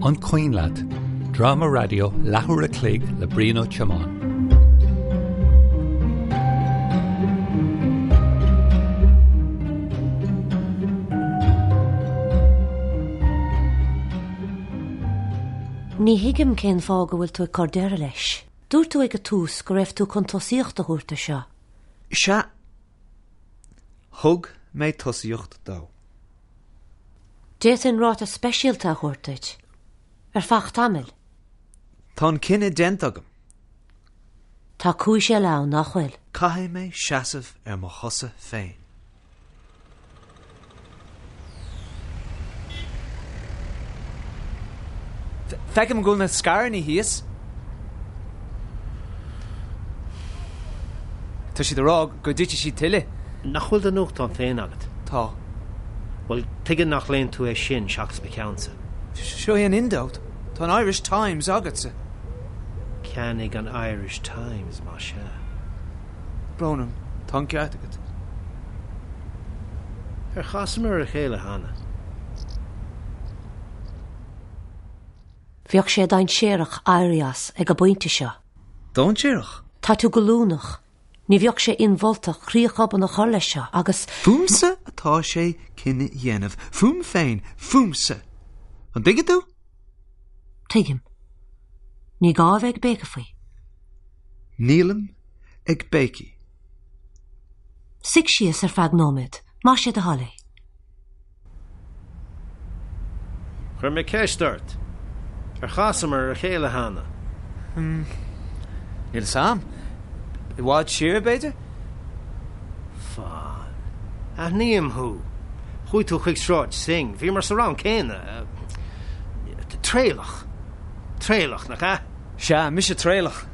An Cuimhin Leat? Dráma raidió leathuair a chloig le Brian Ó Tiomáin. Ní thuigim cén fáth go bhfuil tú ag cur deireadh leis. Dúirt tú ag an tús go raibh tú chun tosaíocht a thabhairt do seo. Sea. Thug mé tosaíocht dó. D'fhéadfainn ráta speisialta a thabhairt duit. Ar feadh tamaill. Tá an cinneadh déanta agam. Tá cúis eile ann, nach bhfuil? Caithfidh mé seasamh ar mo chosa féin. Feicim go bhfuil na scaireanna thíos. Tá siad ag rá go dtitfidh siad tuilleadh. Nach bhfuil do nuachtán féin agat? Tá. Bhuel, tuige nach léann tú é sin seachas mo cheannsa? Seo é an Indo. Tá an Irish Times agatsa. Ceannaigh an Irish Times, más ea. Brón orm, tá an ceart agat. Ar chasamar ar a chéile cheana? Bheadh sé dainséarach éirí as ag an bpointe seo. Dainséarach? Tá tú goilliúnach. Ní bheadh sé inmholta críoch obann a chur leis seo agus. Fúmsa atá sé cinneadh a dhéanamh. Fúm féin. Fúmsa. An dtuigeann tú? Tuigim. Ní gá a bheith ag béiceadh faoi. Nílim ag béiceadh. Suigh síos ar feadh nóiméad, más é do thoil é. Chuir mé ceist ort. Ar chasamar ar a chéile cheana? Níl a fhios a'm. I bhfad siar, b'fhéidir? Fan. Aithním thú. Chuaigh tú chuig Sráid Synge. Bhíomar sa rang céanna. Traolach. Traolach, nach ea? Sea, mise Traolach.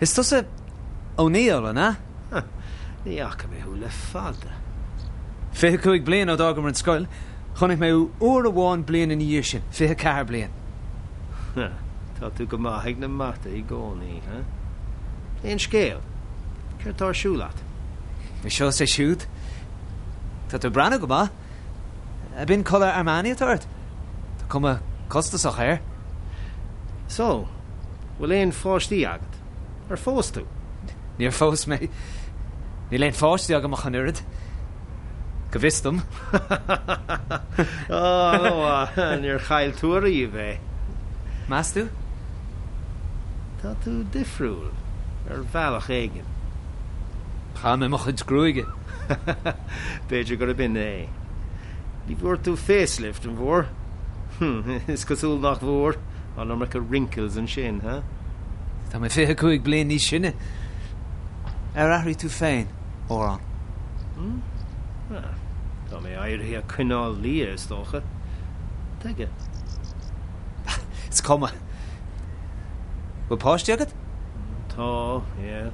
Is tusa O'Neill, an ea? Ní fhaca mé thú le fada. 25 bliain ó d'fhágamar an scoil. Chonaic mé thú uair amháin bliain ina dhiaidh sin, 24 bliain. Tá tú go maith ag na mata i gcónaí, huh? Aon scéal? Céard tá ar siúl a't? É seo is é siúd. Tá tú ag breathnú go maith. Ab in culaith Armani atá ort? Tá cuma costasach air. So, bhfuil aon pháistí agat? Ar phós tú? Níor phós mé. Níl aon pháistí agam ach an oiread. Go bhfios dom. Ó, níor chaill tú ariamh é. Meas tú? Tá tú difriúil, ar bhealach éigin. Chaith mé mo chuid gruaige. B'fhéidir gurb in é. Ní bhfuair tú facelift, an bhfuair? Is cosúil nach bhfuair. An iomarca wrinkles ansin, huh? Tá mé 25 bliain níos sine. Ar athraigh tú féin, mórán? Ah, tá mé éirithe ag coinneáil liath, is dócha. Tuige? Is cuma. Bhfuil páistí agat? Tá, yeah.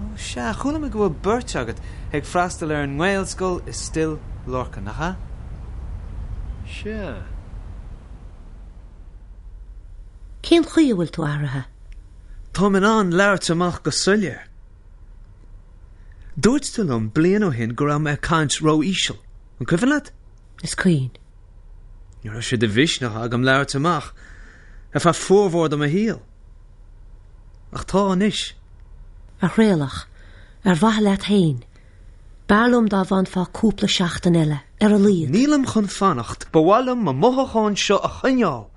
Ó sea, chuala mé go bhfuil beirt agat ag freastal ar an nGaelscoil i Stil Lorcáin, nach ea? Sea. Cén chaoi a bhfuil tú athraithe? Táim in ann labhairt amach go soiléir. Dúirt tú liom bliain ó shin go raibh mé ag caint ró-íseal. An cuimhin leat? Is cuimhin. Ní raibh sé de mhisneach agam labhairt amach ar feadh formhór de mo shaol. Ach tá anois. A Thraolach, ar mhaithe leat féin, b'fhearr liom dá bhfanfá cúpla seachtain eile, ar a laghad. Nílim chun fanacht. Ba mhaith liom mo mhothúcháin seo a choinneáil.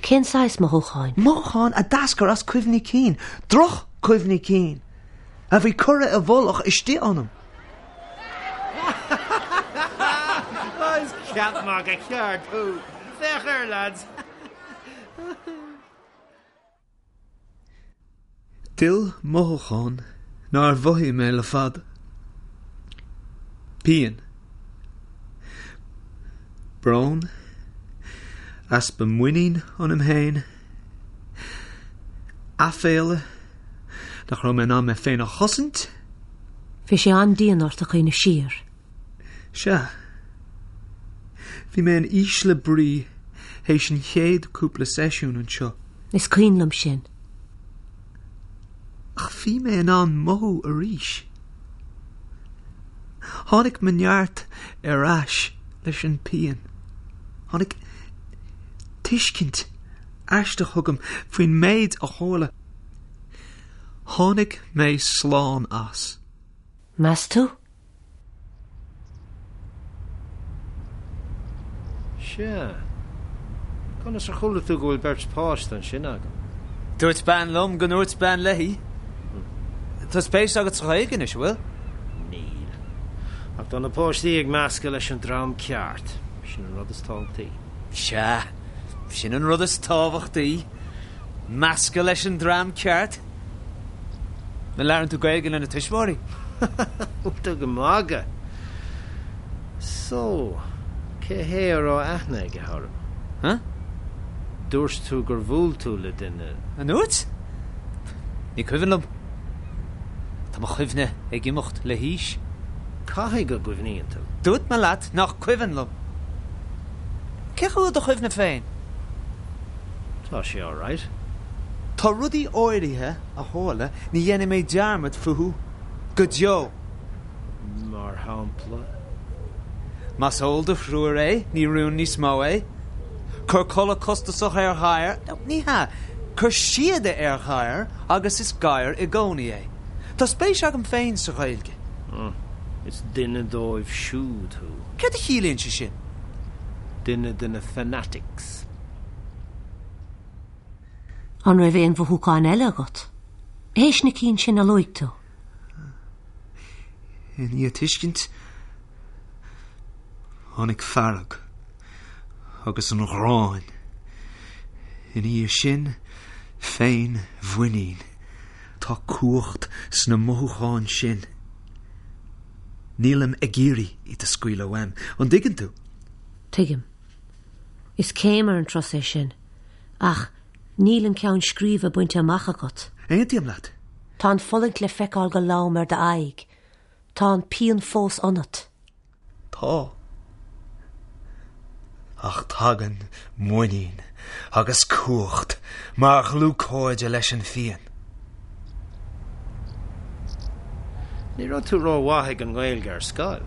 Cén saghas mothúcháin? Mothúcháin a d'eascair as cuimhní cinn, droch-chuimhní cinn, a bhí curtha i bhfolach istigh ionam. Is ceap magaidh ceart thú. Féach air, lads. D'fhill mothúchán nár mhothaigh mé le fada. Pian. Brón. Easpa muinín ionam féin. Aiféala nach raibh mé in ann mé féin a chosaint. Bhí sé an-dian ort a chuimhneamh siar. Sea. Bhí mé in ísle brí théis an chéad cúpla seisiún anseo. Is cuimhin liom sin. Ach bhí mé in ann mothú arís. Tháinig mo neart ar ais leis an pian. Tháinig. tuiscint aisteach chugam faoin méid a tharla. Tháinig mé slán as. Meas tú? Sea. Conas ar chuala tú go bhfuil beirt pháiste ansin agam? Dúirt bean liom go ndúirt bean léi. Tá spéis agat sa Ghaeilge anois, an bhfuil? Níl. Ach tá na páistí ag meascadh leis an dream ceart. Sin an rud is tábhachtaí. Sea, sin an rud is tábhachtaí. Meascadh leis an dream ceart. An labhrann tú Gaeilge lena tuismitheoirí? Bhfuil tú ag magadh? So, cé hé a raibh aithne aige orm? Huh? Dúirt tú gur bhuail tú le duine. An ndúirt? Ní cuimhin liom. Tá mo chuimhne ag imeacht le haois. Caithfidh go gcuimhníonn tú. Dúirt mé leat nach cuimhin liom. Cén chaoi a bhfuil do chuimhne féin? Tá sé alright. Tá rudaí áirithe a tharla ní dhéanfaidh mé dearmad fúthu go deo. Mar shampla? Más eol do thriúr é, ní rún níos mó é. Cuir culaith costasach ar ghadhar, nó ní hea, cuir síoda ar ghadhar agus is gadhar i gcónaí é. Tá spéis agam féin sa Ghaeilge. Is duine dóibh siúd thú. Céard a chiallaíonn sé sin? Duine de na fanatics. An raibh aon mhothúcháin eile agat? Théis na cinn sin a luaigh tú? I ndiaidh tuiscint, tháinig fearg agus an ghráin. Ina dhiaidh sin, féinmhuinín. Tá cumhacht sna mothúcháin sin. Nílim ag iarraidh iad a scaoileadh uaim. An dtuigeann tú? Tuigim. Is céim ar an turas é sin. Ach níl an ceann scríbe bainte amach agat. Aontaím leat. Tá an fulaingt le feiceáil go lom ar d'aghaidh. Tá an pian fós ionat. Tá. Ach tagann muinín agus cumhacht mar dhlúthchairde leis an phian. Ní raibh tú rómhaith ag an nGaeilge ar scoil.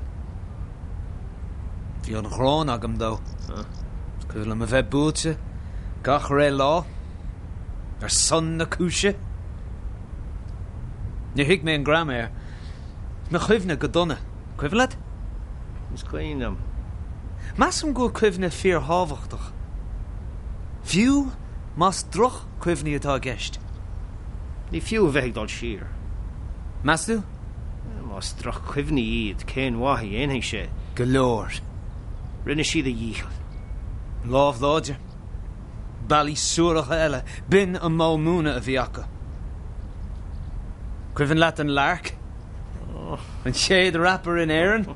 Bhí an ghráin agam dó. Is cuimhin liom a bheith buailte gach re lá. Ar son na cúise. Níor thuig mé an graiméar. Mo chuimhne go dona. Cuimhin leat? Is cuimhin liom. Measaim go bhfuil cuimhne fíorthábhachtach. Fiú más droch-chuimhní atá i gceist. Ní fiú a bheith ag dul siar. Meas tú? Más droch-chuimhní iad, cén mhaith a dhéanfaidh sé? Go leor. Rinne siad a dhícheall. Lámh láidir. Bealaí suaracha eile, b'in an modh múineadh a bhí acu. Cuimhin leat an Lark? An chéad rapper in Éirinn?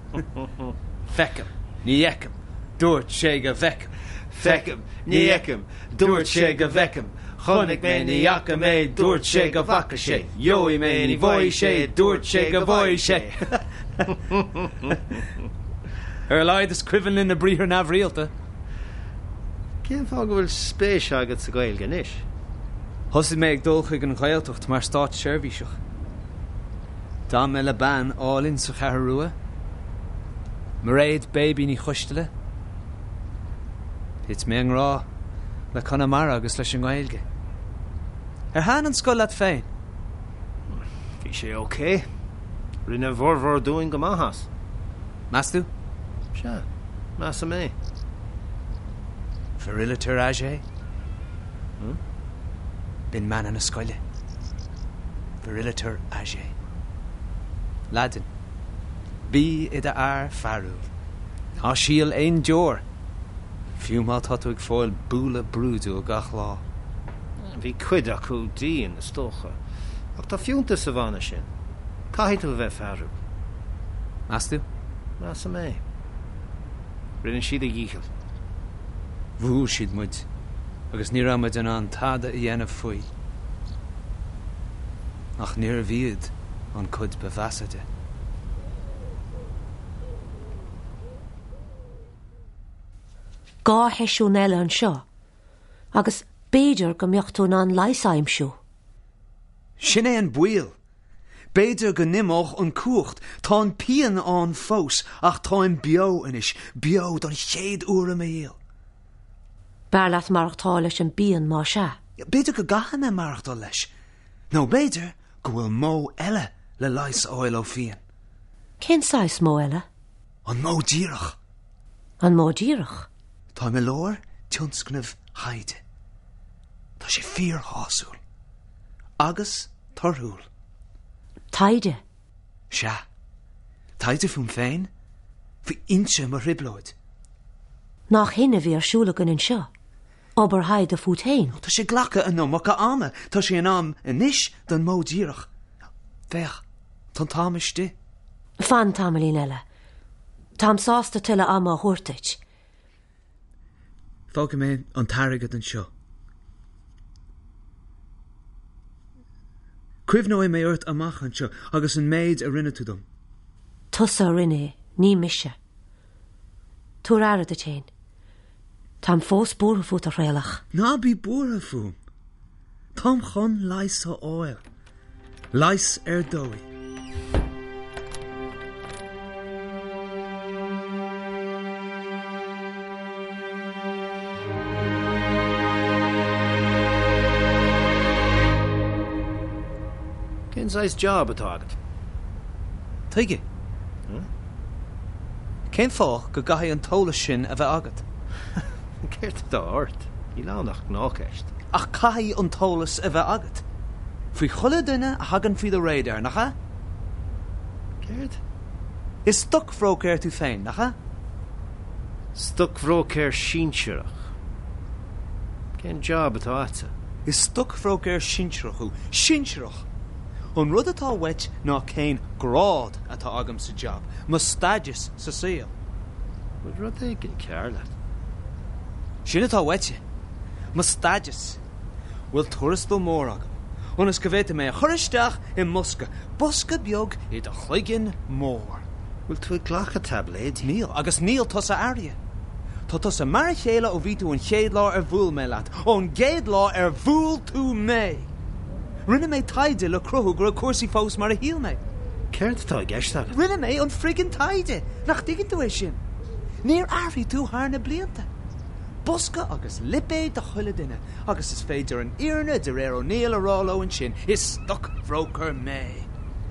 Feicim, ní fheicim, dúirt sé go bhfeicim. Feicim, ní fheicim, dúirt sé go bhfeicim. Chonaic mé, ní fhaca mé, dúirt sé go bhfaca sé. Gheobhaidh mé, ní bhfaighidh sé, dúirt sé go bhfaigheadh sé. Ar a laghad is cuimhin linn na briathra neamhrialta. Cén fáth go bhfuil spéis agat sa Ghaeilge anois? Thosaigh mé ag dul chuig an Ghaeltacht mar státseirbhíseach. D'fhan mé le bean álainn sa Cheathrú Rua, Mairéad Baby Ní Choisteala. Thit mé i ngrá le Conamara agus leis an nGaeilge. Ar thaitin an scoil leat féin? Bhí sé ok. Rinne a bhformhór dúinn go maith as. Meas tú? Sea, measaim é. Viriliter age? B'in mana na scoile. Viriliter age. Laidin. Bí i d'fhear fearúil. Ná sil aon deoir, fiú má tá tú ag fáil bualadh brúidiúil gach lá. Bhí cuid acu dian, is dócha. Ach tá fiúntas sa mhana sin. Caithfidh tú a bheith fearúil. Meas tú? Measaim é. Rinne siad a dhícheall. Bhuail siad muid agus ní raibh muid in ann tada a dhéanamh faoi. Ach níorbh iad an cuid ba mheasa de. Dhá sheisiún eile anseo agus b'fhéidir go mbeadh tú in ann leigheas a aimsiú. Sin é an baol. B'fhéidir go n-imeodh an cumhacht. Tá an pian ann fós, ach táim beo anois, beo don chéad uair i mo shaol. B'fhearr leat maireachtáil leis an bpian más ea. B'fhéidir go gcaithfidh mé maireachtáil leis. Nó b'fhéidir go bhfuil modh eile le leigheas a fháil ó phian. Cén saghas modh eile? An modh díreach. An modh díreach? Táim i lár tionscnaimh thaighde. Tá sé fíorshásúil. Agus torthúil. Taighde? Sea. Taighde fúm féin, faoi fhoinse mo thrioblóid. Nach shin a bhí ar siúl againn anseo? Obair thaighde fút féin? Tá sé ag glacadh an iomarca ama. Tá sé in am anois don modh díreach. Féach, tá an t-am istigh. Fan tamaillín eile. Táim sásta tuilleadh ama a thabhairt duit. Fágfaidh mé an t-airgead anseo. Cuimhneoidh mé ort amach anseo agus an méid a rinne tú dom. Tusa a rinne é, ní mise. Tabhair aire duit féin. Táim fós buartha fút, a Thraolach. Ná bí buartha fúm. Táim chun leigheas a fháil. Leigheas ar dóigh. Cén saghas job atá agat? Tuige? Cén fáth go gcaithfidh an t-eolas sin a bheith agat? Céard atá ort? Níl ann ach gnáthcheist. Ach caithfidh an t-eolas a bheith agat. Faoi chuile duine a thagann faoi do radar, nach ea? Céard? Is stocbhróicéir tú féin, nach ea? Stocbhróicéir sinsearach. Cén job atá agatsa? Is stocbhróicéir sinsearach thú. Sinsearach! An rud atá uait ná cén grád atá agam sa job, mo status sa saol. Bhfuil rud éigin cearr leat? Sin atá uaitse. Mo status. Bhfuil tuarastal mór agam, ionas go bhféadfaidh mé a chur isteach i mbosca, bosca beag i do chloigeann mór. Bhfuil tú ag glacadh taibléidí? Níl, agus níl tusa athraithe. Tá tusa mar a chéile ó bhí tú an chéad lá ar bhuail mé leat, ón gcéad lá ar bhuail tú mé! Rinne mé taighde le cruthú go raibh cúrsaí fós mar a shíl mé. Céard atá i gceist agat? Rinne mé an friggin taighde! Nach dtuigeann tú é sin? Níor athraigh tú thar na blianta. Bosca agus lipéad do chuile duine, agus is féidir an fhírinne de réir O'Neill a rá leo ansin, is stoc-bhróicéir mé!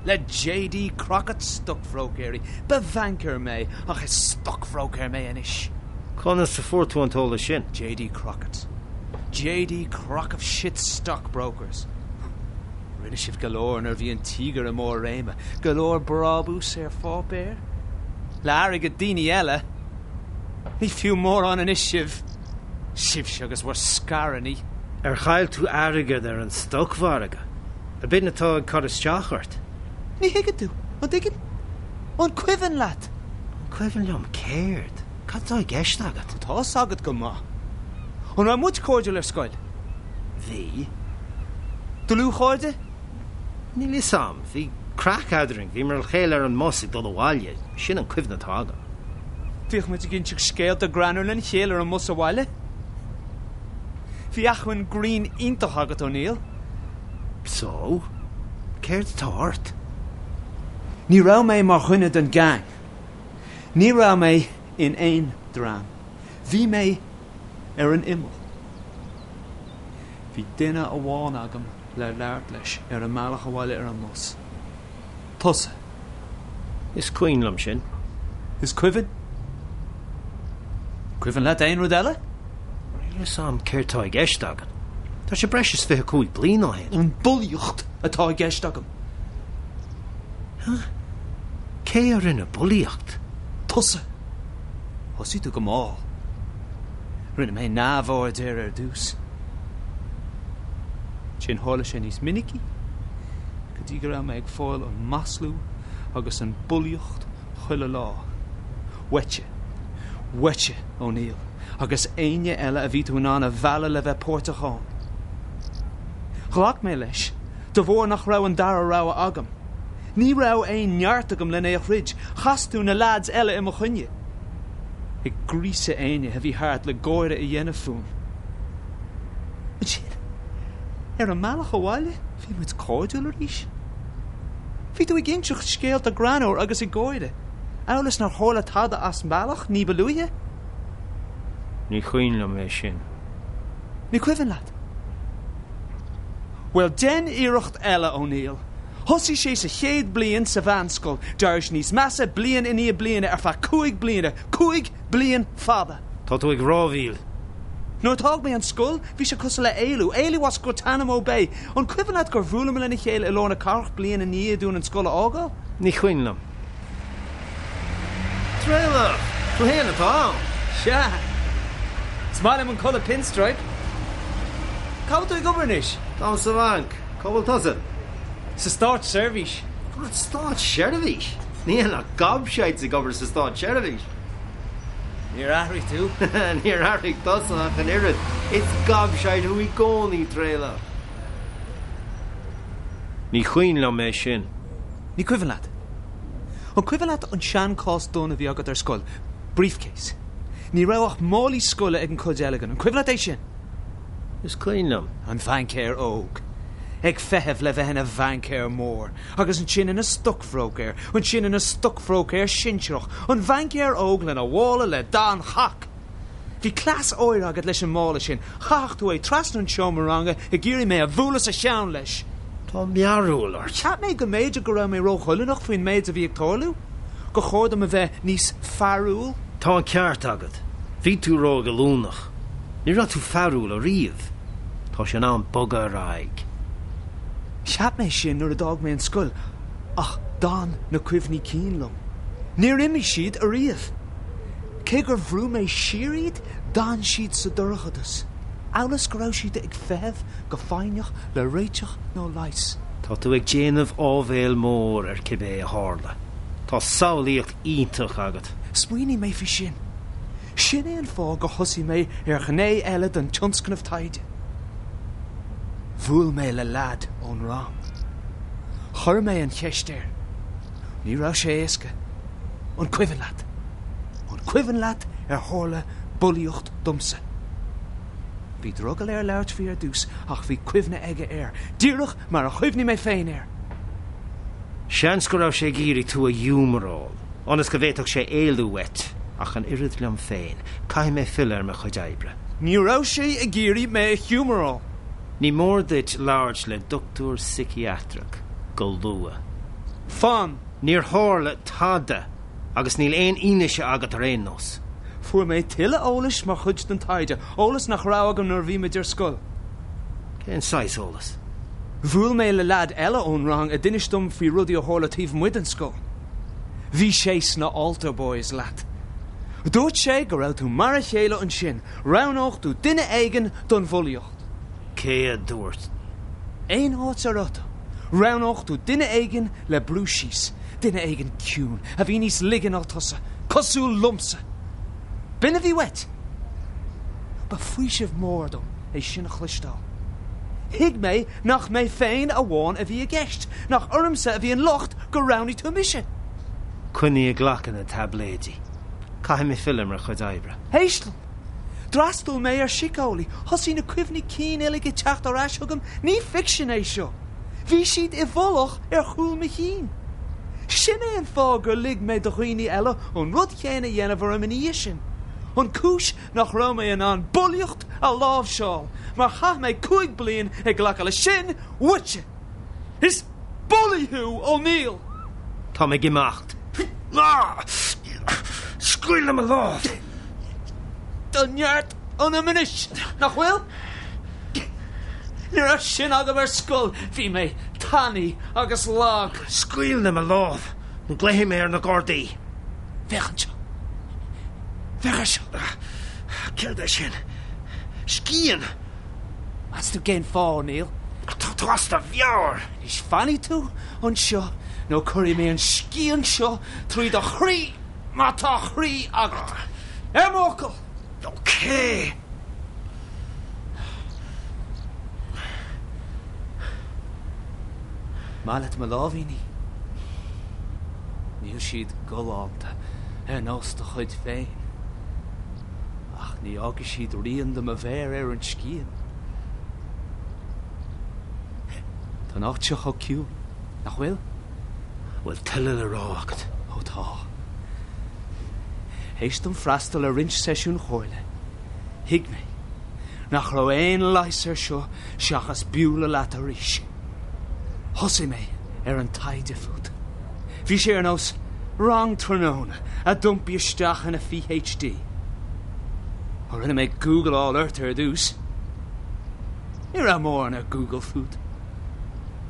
Le J.D. Crockett stoc-bhróicéirí, ba bhanker mé, ach is stoc-bhróicéir mé anois! Conas a fuair tú an t-eolas sin? J.D. Crockett. J.D. Crock of Shit Stockbrokers. Rinne sibh go leor nuair a bhí an tíogar i mbarr réime, go leor brabús ar pháipéar. Le airgead daoine eile. Ní fiú mórán anois sibh. Sibhse agus bhur scaireanna. Ar chaill tú airgead ar an stocmhargadh? Ab in atá ag cur isteach ort? Ní thuigeann tú, an dtuigeann? An cuimhin leat? An cuimhin liom céard? Cad atá i gceist agat? Tá fhios agat go maith. An raibh muid cairdiúil ar scoil? Bhí. Dlúthchairde? Níl fhios a'm. Bhí craic eadrainn. Bhíomar le chéile ar an mbus ag dul abhaile. Sin an cuimhne atá agam. Bhíodh muid ag inseacht scéalta greannmhar lena chéile ar an mbus abhaile. Bhí acmhainn grinn iontach agat, O'Neill. So? Céard atá ort? Ní raibh mé mar dhuine den gang. Ní raibh mé in aon dream. Bhí mé ar an imeall. Bhí duine amháin agam le labhairt leis ar an mbealach abhaile ar an mbus. Tusa. Is cuimhin liom sin. Is cuimhin? Cuimhin leat aon rud eile? Níl fhios a'm céard tá i gceist agat. Tá sé breis is 25 bliain ó shin. An bulaíocht atá i gceist agam. Huh? Cé a rinne bulaíocht? Tusa. Thosaigh tú go mall. Rinne mé neamhaird air ar dtús. Ansin tharla sé níos minicí, go dtí go raibh mé ag fáil an maslú agus an bulaíocht chuile lá. Uaitse. Uaitse, O'Neill, agus éinne eile a bhí tú in ann a mhealladh le bheith páirteach ann. Ghlac mé leis, de bharr nach raibh an dara rogha agam. Ní raibh aon neart agam len é a throid. Chas tú na leaids eile i mo choinne. Ag gríosadh éinne a bhí thart le gáire a dhéanamh fúm. Ansin, ar an mbealach abhaile, bhí muid cairdiúil arís. Bhí tú ag inseacht scéalta greannmhar agus ag gáire, amhail is nár tharla tada as an mbealach ní ba luaithe. Ní cuimhin liom é sin. Ní cuimhin leat? Bhuel, déan iarracht eile, O'Neill. Thosaigh sé sa chéad bliain sa mheánscoil, d'éirigh sé níos measa bliain i ndiaidh bliana ar feadh 5 bliana, 5 bliain fada! Tá tú ag rámhaíl. Nuair a d'fhág mé an scoil, bhí sé cosúil le éalú, éalú as Guantanamo Bay. An cuimhin leat gur bhuaileamar lena chéile i lár na cathrach bliain i ndiaidh dúinn an scoil a fhágáil? Ní cuimhin liom. Traolach! Tú fhéin atá ann! Sea. Is maith liom an culaith pinstripe. Cá bhfuil tú ag obair anois? Táim sa bhanc. Cá bhfuil tusa? Sa státseirbhís. An státseirbhís? Níl ach gobshites ag obair sa státseirbhís. Níor athraigh tú. Níor athraigh tusa ach an oiread. Is gobshite thú i gcónaí, Traolach. Ní cuimhin liom é sin. Ní cuimhin leat? An cuimhin leat an sean-chás donn a bhí agat ar scoil? Briefcase. Ní raibh ach málaí scoile ag an chuid eile againn. An cuimhin leat é sin? Is cuimhin liom. An bhaincéir óg. Ag feitheamh le bheith ina bhaincéir mór. Agus ansin ina stocbhróicéir. Ansin ina stocbhróicéir sinsearach. An bhaincéir óg lena mhála le dath an chac! Bhí cleas áirithe agat leis an mála sin. Chaithfeadh tú é trasna an seomra ranga ag iarraidh mé a bhualadh sa cheann leis. Tá mearbhall ort. Cheap mé go mb'fhéidir go raibh mé róghoilliúnach faoin méid a bhí ag tarlú. Gur chóir dom a bheith níos fearúil. Tá an ceart agat. Bhí tú róghoilliúnach. Ní raibh tú fearúil ariamh. Tá sé in am bogadh ar aghaidh. Cheap mé sin nuair a d'fhág mé an scoil, ach d'fhan na cuimhní cinn liom. Níor imigh siad ariamh. Cé gur bhrú mé siar iad, d'fhan siad sa dorchadas, amhail is go raibh siad ag feitheamh go foighneach le réiteach nó leigheas. Tá tú ag déanamh áibhéil mór ar cibé a tharla. Tá samhlaíocht iontach agat. Smaoinigh mé faoi sin. Sin é an fáth gur thosaigh mé ar ghné eile den tionscnamh taighde. Bhuail mé le leaid ón rang. Chuir mé an cheist air. Ní raibh sé éasca. An cuimhin leat? An cuimhin leat ar tharla bulaíocht domsa? Bhí drogall air labhairt faoi ar dtús ach bhí cuimhne aige air, díreach mar a chuimhnigh mé féin air. Seans go raibh sé ag iarraidh tú a ghiúmaráil, ionas go bhféadfadh sé éalú uait, ach an oiread liom féin, caithfidh mé filleadh ar mo chuid oibre. Ní raibh sé ag iarraidh mé a ghiúmaráil. Ní mór duit labhairt le dochtúir síciatrach go luath. Fan! Níor tharla tada agus níl aon fhianaise agat ar aon nós. Fuair mé tuilleadh eolais mar chuid den taighde, eolas nach raibh agam nuair a bhí muid ar scoil. Cén saghas eolas? Bhuail mé le leaid eile ón rang a d'inis dom faoi rudaí a tharla taobh amuigh den scoil. Bhí sé sna Altar Boys leat. Dúirt sé go raibh tú mar a chéile ansin, roghnódh tú duine éigin don bhulaíocht. Cé a dúirt? Aon áit a raibh tú, roghnódh tú duine éigin le brú síos, duine éigin ciúin, a bhí níos laige ná tusa, cosúil liomsa. B'in a bhí uait. Ba faoiseamh mór dom é sin a chloisteáil. Thuig mé nach mé féin amháin a bhí i gceist, nach ormsa a bhí an locht gur roghnaigh tú mise. Coinnigh ag glacadh na taibléidí. Caithfidh mé filleadh ar mo chuid oibre. Éist liom. D'fhreastail mé ar síceolaí. Thosaigh na cuimhní cinn uilig ag teacht ar ais chugam. Ní ficsean é seo. Bhí siad i bhfolach ar chúl mo chinn. Sin é an fáth gur lig mé do dhaoine eile an rud chéanna a dhéanamh orm ina dhiaidh sin. An cúis nach raibh mé in ann bulaíocht a láimhseáil, mar chaith mé 5 bliain ag glacadh leis sin uaitse! Is bulaí thú, O'Neill! Táim ag imeacht. Scaoil le mo lámh! Tá neart ionam anois, nach bhfuil? Ní raibh sin agam ar scoil, bhí mé tanaí agus lag. Scaoil le mo lámh, nó glaofaidh mé ar na Gardaí. Féach anseo. Féach air seo. Céard é sin? Scian! Meas tú cén fáth, O'Neill? Tá tú as do mheabhair! Anois fanfaidh tú anseo nó cuirfidh mé an scian seo trí do chroí má tá croí agat. Ar m'fhocal! Ok! Maith leat mo láimhíní? Níl siad galánta ar nós do chuid féin. Ach ní fhágfaidh siad rian de mo mhéar ar an scian. Tá an áit seo chomh ciúin, nach bhfuil? Bhfuil tuilleadh le rá agat? Ó tá. Théis dom freastal ar roinnt seisiún comhairle, thuig mé. nach raibh aon leigheas air seo seachas bualadh leat arís. Thosaigh mé ar an taighde fút. Bhí sé ar nós rang tráthnóna a d'iompaigh isteach ina PhD. Ó rinne mé gúgláil ort ar dtús. Ní raibh mórán ar Google fút.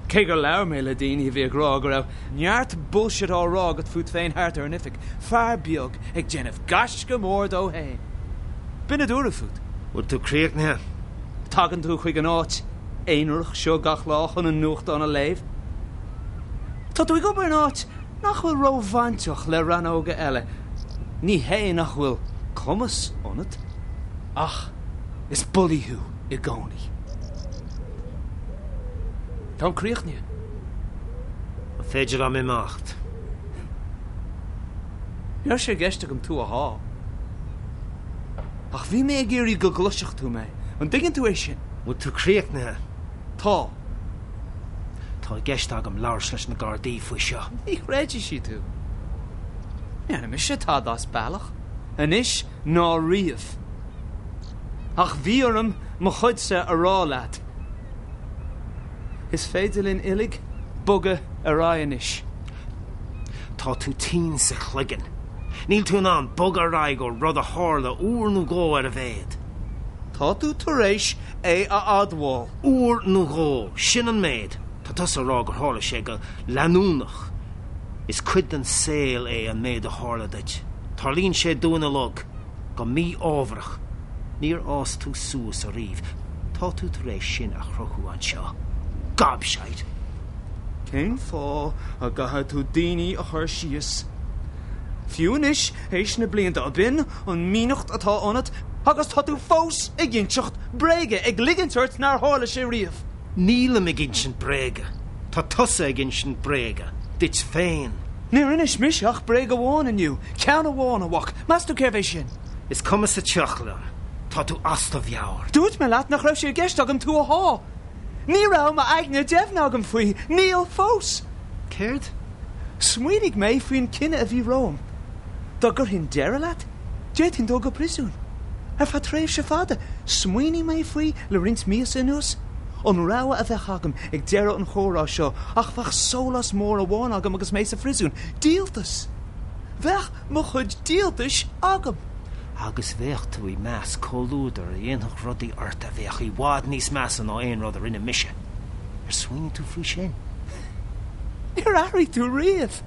Cé gur labhair mé le daoine a bhí ag rá go raibh neart bullshit á rá agat fút féin thart ar an oifig, fear beag ag déanamh gaisce mór dó féin. B'in a dúradh fút. Bhfuil tú críochnaithe? Tagann tú chuig an áit aonarach seo gach lá chun an nuachtán a léamh. Tá tú ag obair in áit nach bhfuil róbhainteach le rannóga eile. Ní hé nach bhfuil cumas ionat, ach is bulaí thú i gcónaí. Táim críochnaithe. An féidir liom imeacht? Ní raibh sé i gceist agam tú a shá. Ach bhí mé ag iarraidh go gcloisfeadh tú mé. An dtuigeann tú é sin? Bhfuil tú críochnaithe? Tá. Tá i gceist agam labhairt leis na Gardaí faoi seo. Ní chreidfidh siad thú. Ní dhearna mise tada as bealach. Anois ná riamh. Ach bhí orm mo chuidse a rá leat. Is féidir linn uilig bogadh ar aghaidh anois. Tá tú tinn sa chloigeann. Níl tú in ann bogadh ar aghaidh ó rud a tharla uair nó dhó ar a mhéad. Tá tú tar éis é a admháil. Uair nó dhó, sin an méid. Tá tusa ag rá gur tharla sé go leanúnach. Is cuid den saol é an méid a tharla duit. Tarlaíonn sé dúinn uilig. Go mí-ámharach. Níor fhás tú suas ariamh. Tá tú tar éis sin a chruthú anseo. Gobshite! Cén fáth a gcaithfidh tú daoine a chur síos? Fiú anois, théis na blianta, ab in an mhianacht atá ionat? Agus tá tú fós ag inseacht bréige, ag ligint ort nár tharla sé riamh. Nílim ag insint bréige. Tá tusa ag insint bréige. Duit féin. Níor inis mise ach bréag amháin inniu. Ceann amháin, a mhac. Meas tú cérbh é sin? Is cuma sa tsioc liom. Tá tú as do mheabhair. Dúirt mé leat nach raibh sé i gceist agam tú a shá. Ní raibh m'aigne deimhne agam faoi. Níl fós. Céard? Smaoinigh mé faoin cinneadh a bhí romham. Dá gcuirfinn deireadh leat, d'fhéadfainn dul go príosún. Ar feadh tréimhse fada. Smaoinigh mé faoi le roinnt míosa anuas. An rogha a bheadh agam ag deireadh an chomhrá seo ach bheadh sólás mór amháin agam agus mé sa phríosún, díoltas! Bheadh mo chuid díoltais agam! Agus bheadh tú i measc comhluadar a dhéanfadh rudaí ort a bheadh i bhfad níos measa ná aon rud a rinne mise. Ar smaoinigh tú faoi sin? Níor athraigh tú riamh!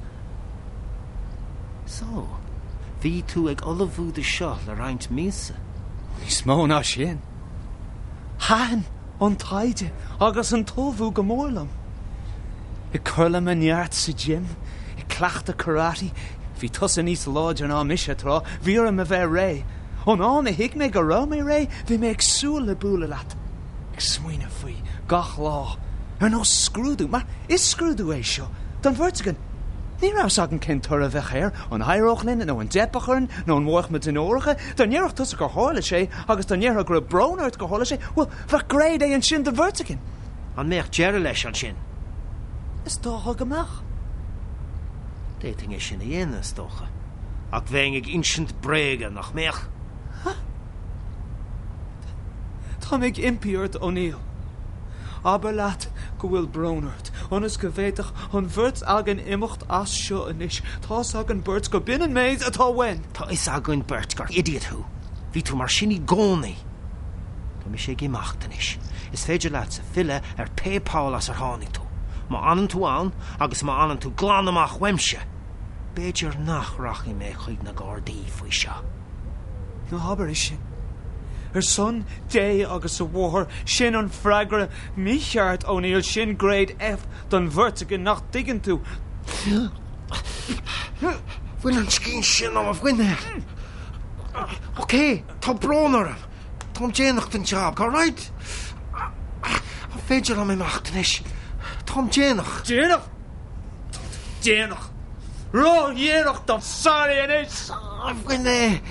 So, bhí tú ag ullmhú do seo le roinnt míosa? Níos mó ná sin. Thaitin an taighde agus an t-ullmhú go mór liom. Ag cur le mo neart sa gym, ag cleachtadh karate, bhí tusa níos láidre ná mise tráth, bhí orm a bheith réidh. Ón am a thuig mé go raibh mé réidh, bhí mé ag súil le bualadh leat. Ag smaoineamh faoi gach lá, ar nós scrúdú, mar is scrúdú é seo, don bheirt againn. Ní raibh fhios againn cén toradh a bheadh air, an éireodh linn nó an dteipfeadh orainn nó an mhairfeadh muid onóracha. Dá ndéarfadh tusa gur tharla sé agus dá ndéarfá go raibh brón ort gur tharla sé, bhuel, bheadh Grade A ansin don bheirt againn. An mbeadh deireadh leis ansin? Is dócha go mbeadh. D'fhéadfainn é sin a dhéanamh, is dócha. Ach bheinn ag insint bréige, nach mbeadh? Tá mé ag impí ort, O'Neill. Abair leat go bhfuil brón ort, ionas go bhféadfadh an bheirt againn imeacht as seo anois. Tá's againn beirt go b'in an méid atá uainn. Tá fhios againn beirt gur idiot thú. Bhí tú mar sin i gcónaí. Tá mise ag imeacht anois. Is féidir leatsa filleadh ar pé poll as ar tháinig tú. Má fhanann tú ann, agus má fhanann tú glan amach uaimse, b'fhéidir nach rachaidh mé chuig na Gardaí faoi seo. Ná habair é sin. Ar son Dé agus a Mháthar, sin an freagra mícheart, O'Neill, sin Grade F don bheirt againn, nach dtuigeann tú? Bhain an scian sin ó mo mhuinéal. Ok, tá brón orm. Táim déanach don job, alright? An féidir liom imeacht anois? Táim déanach. Déanach? Tá tú déanach. Ródhéanach dom. Sorry anois. Bhain é.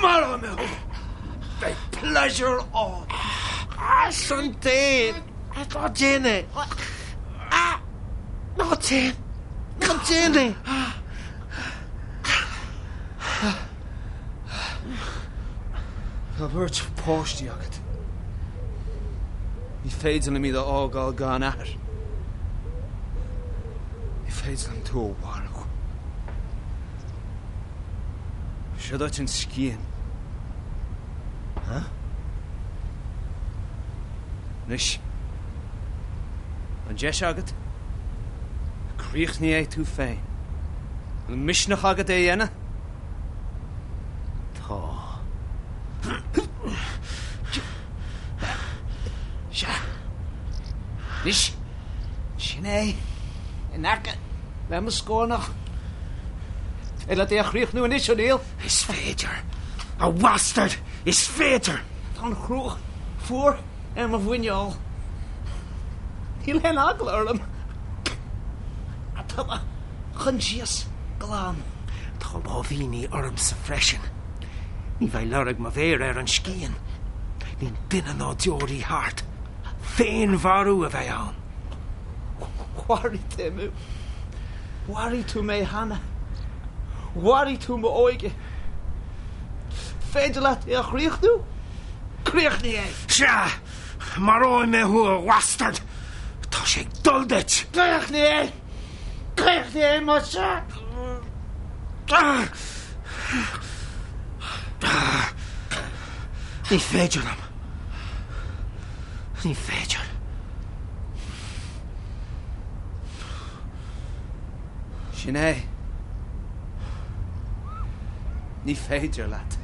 Maróidh mé thú. Beidh pléisiúr ann. Ar son Dé, ná déan é. Ná déan. Ná déan é. Tá beirt páistí agat. Ní féidir liom iad a fhágáil gan athair. Ní féidir liom tú a mharú. Seo duit an scian. Huh? Anois, an deis agat, críochnaigh é tú féin. An misneach agat é a dhéanamh? Tá. Sea. Anois, sin é. In aice le mo scornach. Féidir leat é a chríochnú anois, O'Neill? Is féidir. A bhastaird! Is féidir! Tá an chruach fuar ar mo mhuineál. Níl aon eagla orm. Tá mo choinsias glan. Tá láimhíní ormsa freisin. Ní bheidh lorg mo mhéire ar an scian. Níl duine ná deoraí thart. Féinmharú a bheidh ann. Mharaigh tú mé. Mharaigh tú mé cheana. Mharaigh tú m'óige. Féidir leat é a chríochnú? Críochnaigh é! Sea! Maróidh mé thú, a bhastaird! Tá sé ag dul duit! Críochnaigh é! Críochnaigh é, más ea! Ní féidir liom. Ní féidir. Sin é. Ní féidir leat.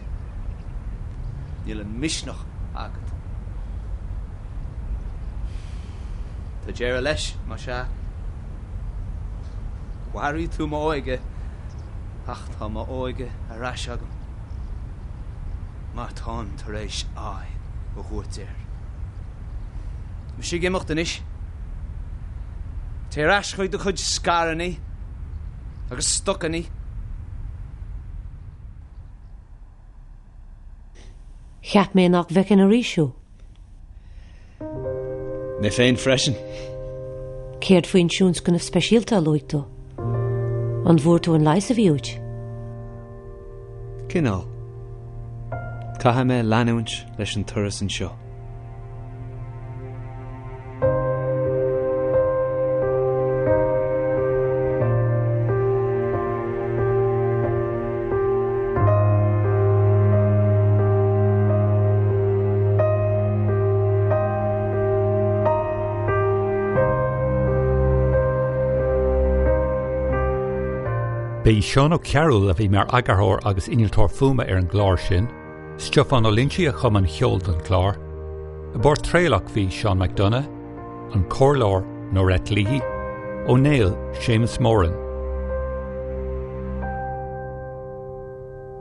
Níl an misneach agat. Tá deireadh leis, más ea. Mharaigh tú m'óige, ach tá m'óige ar ais agam. Mar táim tar éis aghaidh a thabhairt air. Mise ag imeacht anois. Téigh ar ais chuig do chuid scaireanna agus stocanna. Cheap mé nach bhfeicfinn arís thú. Mé féin freisin. Céard faoin tionscnamh speisialta a luaigh tú? An bhfuair tú an leigheas a bhí uait? Cineál. Caithfidh mé leanúint leis an turas anseo. Ba é Seán Ó Cearúil a bhí mar eagarthóir agus innealtóir fuaime ar an gclár sin. Stiofán Ó Loinsigh a chum an ceol don chlár. I bpáirt Traolach bhí Seán McDonagh, an comhairleoir Norette Leahy, Ó Néill Séamus Moran.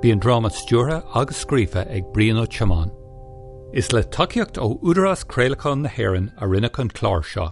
Bhí an dráma stiúrtha agus scríofa ag Brian Ó Tiomáin. Is le tacaíocht ó Údarás Craolacháin na hÉireann a rinneadh an clár seo.